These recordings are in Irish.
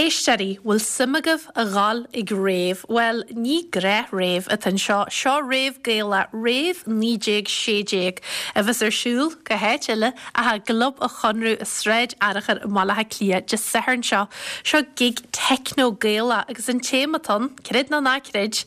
Éisteoirí, bhfuil suim agaibh a dhul ag rave? Bhuel, ní gnáth-rave atá anseo, seo rave Gaelach, Rave 1916, a bheas ar siúl, cá háit eile, ach i gClub an Chonradh i Sráid Fhearchair i mBaile Átha Cliath Dé Sathairn seo. Seo gig techno Gaelach agus an téama atá ann, creid nó ná creid,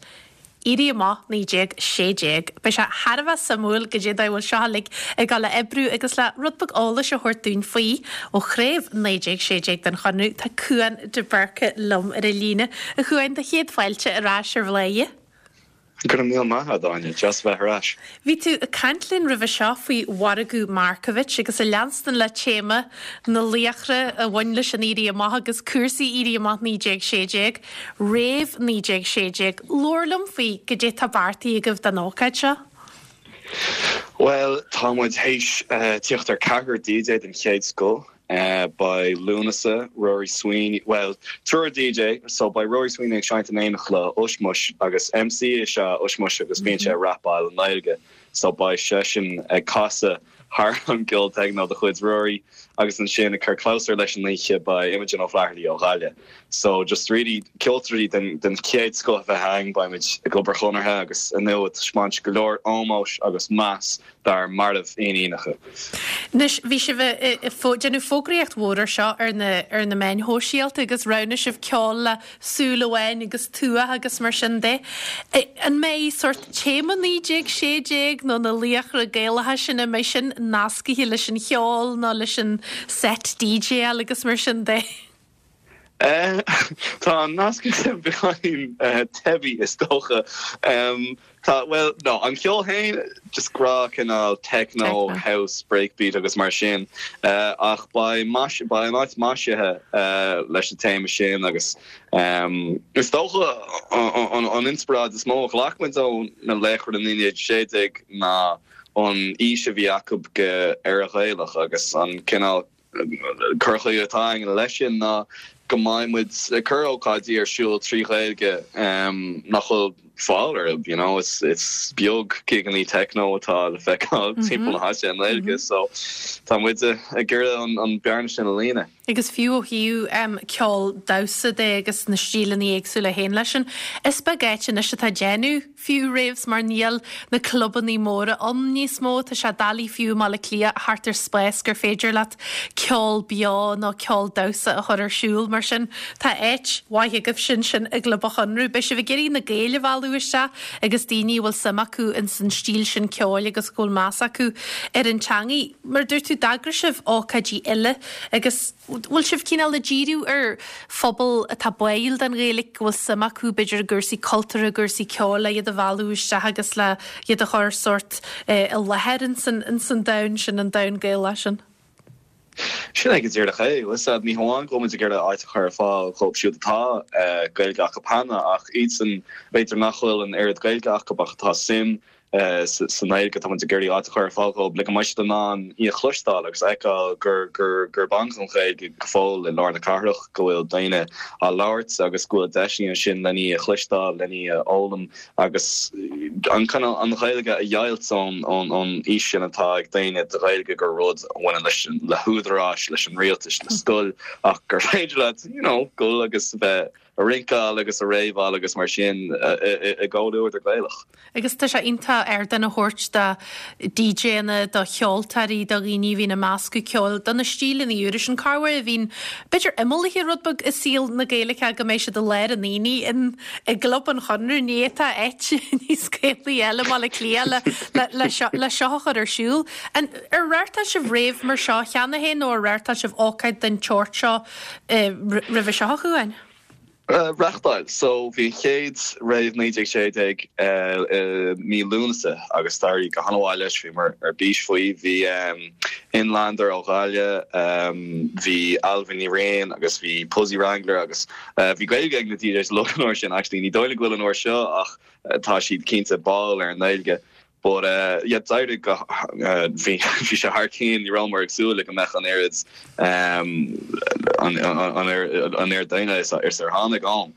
Éirí Amach 1916. Beidh sé thar a bheith suimiúil goidé an dóigh a bhfuil seo uilig ag dul a oibriú agus le rud beag eolais a thabhairt dúinn faoi ó chraobh 1916 den Chonradh tá Cúán de Búrca liom ar an líne. A Chúáin, do chéad fáilte ar ais ar Bhladhaire. Go raibh míle maith agat, Áine. Deas a bheith ar ais. Bhí tú ag caint linn roimhe seo faoi mhargadh Markievicz agus ag leanstan le téama na laochra a bhain leis an Éirí Amach agus cúrsaí Éirí Amach 1916. Rave 1916. Labhair liom faoi goidé tá beartaithe agaibh don ócáid seo. Bhuel, tá muid théis tíocht ar ceathrar DJ den chéad scoth. Beidh Lúnasa, Rory Sweeney, bhuel, triúr DJ, so beidh Rory Sweeney ag seinnt in éineacht le Ushmush agus MC is ea Ushmush agus bíonn sé ag rapáil i nGaeilge, so beidh seisean ag casadh thar an gceol techno de chuid Rory agus ansin ag cur clabhsúr leis an oíche beidh Imogen O'Flaherty ó Ghaillimh. So just really ceoltóirí den den chéad scoth a bheidh againn, beimid i gClub an Chonartha agus ar ndóigh ag taispeáint go leor ómóis agus meas dár marbh-fhíníneacha. Anois bhí sibh ag déanamh fógraíocht mhór ar seo ar na ar na meáin shóisialta agus roghnaigh sibh ceol le Súil Amháin agus Tuath agus mar sin de. An mbeidh sórt téama 1916 nó na laochra Gaelacha sin, an mbeidh sin nascaithe leis an cheol nó leis an set DJáil agus mar sin de? Tá an nasc sin beagáinín teibí is dócha. Tá, bhuel, no, an ceol féin, just gnáth cineál techno, house, breakbeat agus mar sin. Ach beidh mais, beidh an áit maisithe leis an téama sin agus is dócha an inspioráid is mó a ghlac muid ó na laochra 1916 ná an fhís a bhí acu go Éire Ghaelach agus an cineál cur chuige atá againn leis sin ná go mbeidh muid ag cur ócáidí ar siúl trí Ghaeilge nach bhfuil fáil orthu, you know, is is beag gigeannaí techno atá le feiceáil timpeall na háite i nGaeilge so tá muid ag iarraidh an bearna sin a líonadh. Agus fiú ó thaobh ceol damhsa de agus na stíleanna éagsúla a théann leis sin, is beag áit anois atá ag déanamh fiú raves mar níl na clubannaí móra ann níos mó. Tá sé doiligh fiú i mBaile Átha Cliath a theacht ar spás gur féidir leat ceol beo nó ceol damhsa a chur ar siúl. Mar sin tá áit mhaith agaibhse ansin i gClub an Chonradh. Beidh sibh ag iarraidh na Gaeil a mhealladh isteach agus daoine a bhfuil suim acu ins an stíl sin ceoil agus go bhfuil meas acu ar an teangaidh. Mar a dúirt tú d'eagraigh sibh ócáidí eile agus bhfuil sibh cineál ag díriú ar phobal atá báúil don Ghaeilge, go bhfuil suim acu b'fhéidir i gcúrsaí cultúrtha, i gcúrsaí ceoil, le iad a mhealladh isteach agus le iad a chur sórt i láthair ins an domhan sin, an domhan Gaelach sin? Sin é go díreach é. Bhfuil a fhios agat, ní hamháin go bhfuil muid ag iarraidh áit a chur ar fáil dhóibh siúd atá Gaeilge acu cheana ach iadsan b'fhéidir nach bhfuil an oiread Gaeilge acu ach atá suim sa nGaeilge, tá muid ag iarraidh áit a chur ar fáil dhóibh le go mbeidh siad in ann í a chloisteáil agus a fheiceáil gurb ann don Ghaeilge go fóill i lár na cathrach, go bhfuil daoine á labhairt agus go bhfuil deiseanna ansin len í a chloisteáil, len í a fhoghlaim agus an cineál an Ghaeilge a dheighilt ón fhís sin atá ag daoine de Ghaeilge gur rud a bhaineann leis le húdaráis, leis an rialtas, le scoil ach gur féidir leat you know dul agus bheith a rinceáil agus a réabáil agus mar sin i gcomhluadar Gaelach. Agus tá sé iontach ardán a thabhairt do DJanna, do cheoltóirí, do dhaoine a bhíonn ag meascadh ceoil, do na stíleanna úra sin, corruair a bhíonn b'fhéidir imeallaithe rud beag i saol na Gaeilge go mbeidh siad i lár an aonaigh in i gClub an Chonradh, ní fhéadfá áit níos Gaelaí eile i mBaile Átha Cliath le seo le seo a chur ar siúl. An ar reáchtáil sibh rave mar seo cheana féin nó ar reáchtáil sibh ócáid den tseort seo roimhe seo, a Chuáin? Reáchtáil. So bhí an chéad rave 1916 i mí Lúnasa agus d'éirigh go han-mhaith leis, bhíomar ar bís faoi. Bhí Inlander ó Ghaillimh, bhí Ailbhe Ní Riain agus bhí Puzzy Wrangler agus bhí Gaeilge ag na DJs uilig an uair sin actually, ní dóigh liom go bhfuil an uair seo ach tá siad cinnte báúil ar an nGaeilge. But yeah d'éirigh go bhí bhí sé thar cionn, ní rabhamar ag súil le go mbeadh an oiread an an oiread daoine is ar tháinig ann.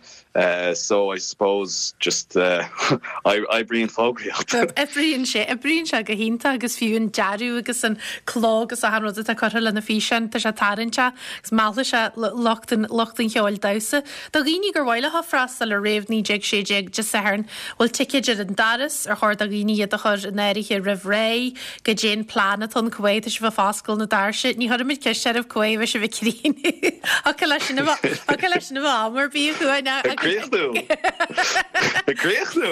So I suppose just oibríonn fógraíocht. Oibríonn sé, oibríonn sé go hiontach agus fiú an dearadh agus an cló agus achan rud atá curtha le na físeáin, tá sé tarraingteach agus meallfaidh sé lucht an lucht an cheoil damhsa. Do dhaoine gur mhaith leo freastal ar Rave 1916 Dé Sathairn, bhfuil ticéid ar an doras, ar chóir do dhaoine iad a chur in áirithe roimh ré? Goidé an plean atá ann, cá mhéad tá sibh ag foscailt na doirse? Ní chuirfimid ceist oraibh cá mhéad a bheidh sibh ag críochnú. Thiocfadh leis sin a bheith, thiocfadh leis sin a bheith am ar bith a Chuain. Ag críochnú! Ag críochnú!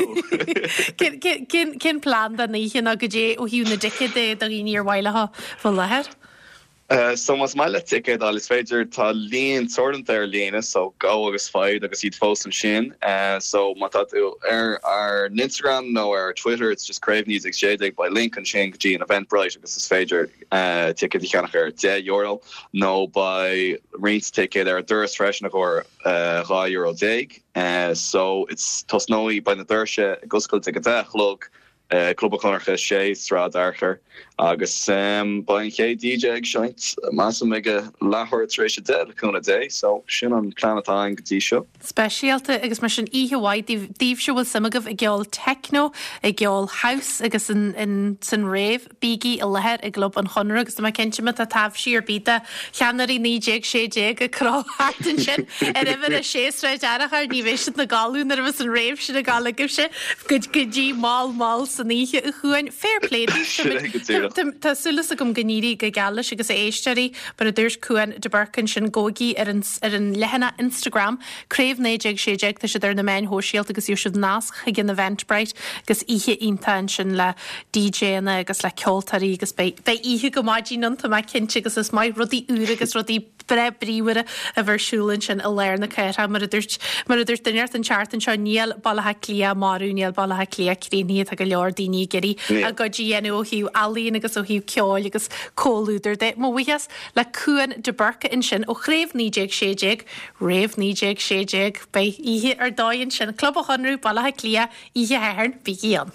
Cén, cén plean don oíche nó goidé ó thaobh na dticéad de do dhaoine ar mhaith leo bheith i láthair? So más maith leat ticéad a fháil is féidir, tá líon teoranta ar líne so go agus faigh iad agus iad fós ansin. So má tá tú ar ár n-Instagram nó ar Twitter it's just Craobh 1916 beidh link ansin go dtí an Eventbrite agus is féidir ticéad a cheannach ar €10 nó beidh roinnt ticéad ar an doras freisin i gcomhair €12 déag. So it's tosnóidh, beidh na doirse ag oscailt ag a 10 a chlog Club an Chonartha 6, Sráid Fhearchair, agus beidh an chéad DJ ag seinnt, measaim, ag a leathuair tar éis a 10, le cúnamh Dé. So, sin an plean atá againn go dtí seo. Speisialta agus mar sin oíche mhaith daoibh, daoibhse a bhfuil suim agaibh i gceol techno, i gceol house agus in san rave, bígí i láthair i gClub an Chonartha agus tá mé cinnte má tá taibhsí ar bith de cheannairí 1916 ag crochadh thart ansin ar uimhir a sé Sráid Fhearchair, ní bheidh siad ina gcodladh nuair a bheas an rave sin ag gabháil agaibhse go dtí mall mall san oíche a Chuain. Fair play daoibh. Tá súil agam go n-éirí go geal leis agus a éisteoirí, mar a dúirt Cuan de Búrca ansin, gabhaigí ar an ar an leathanach Instagram, Craobh 1916, tá siad ar na meáin shóisialta agus gheobhaidh sibh nasc chuig an Eventbrite agus oíche iontach ansin le DJanna agus le ceoltóirí agus beidh beidh oíche go maidin ann, tá mé cinnte agus is maith rudaí úra agus rudaí breá bríomhara a bheith ar siúl ansin i lár na cathrach. Mar a dúirt mar a dúirt duine inteacht an tseachtain seo, níl Baile Átha Cliath marbh, níl Baile Átha Cliath críochnaithe, tá go leor daoine ag iarraidh a gcuid a dhéanamh ó thaobh ealaíon agus ó thaobh ceoil agus comhluadair de. Mo bhuíochas le Cuan de Búrca ansin ó Chraobh 1916, Rave 1916, beidh oíche ar dóigh ansin, Club an Chonradh, Baile Átha Cliath, oíche Shathairn, bígí ann.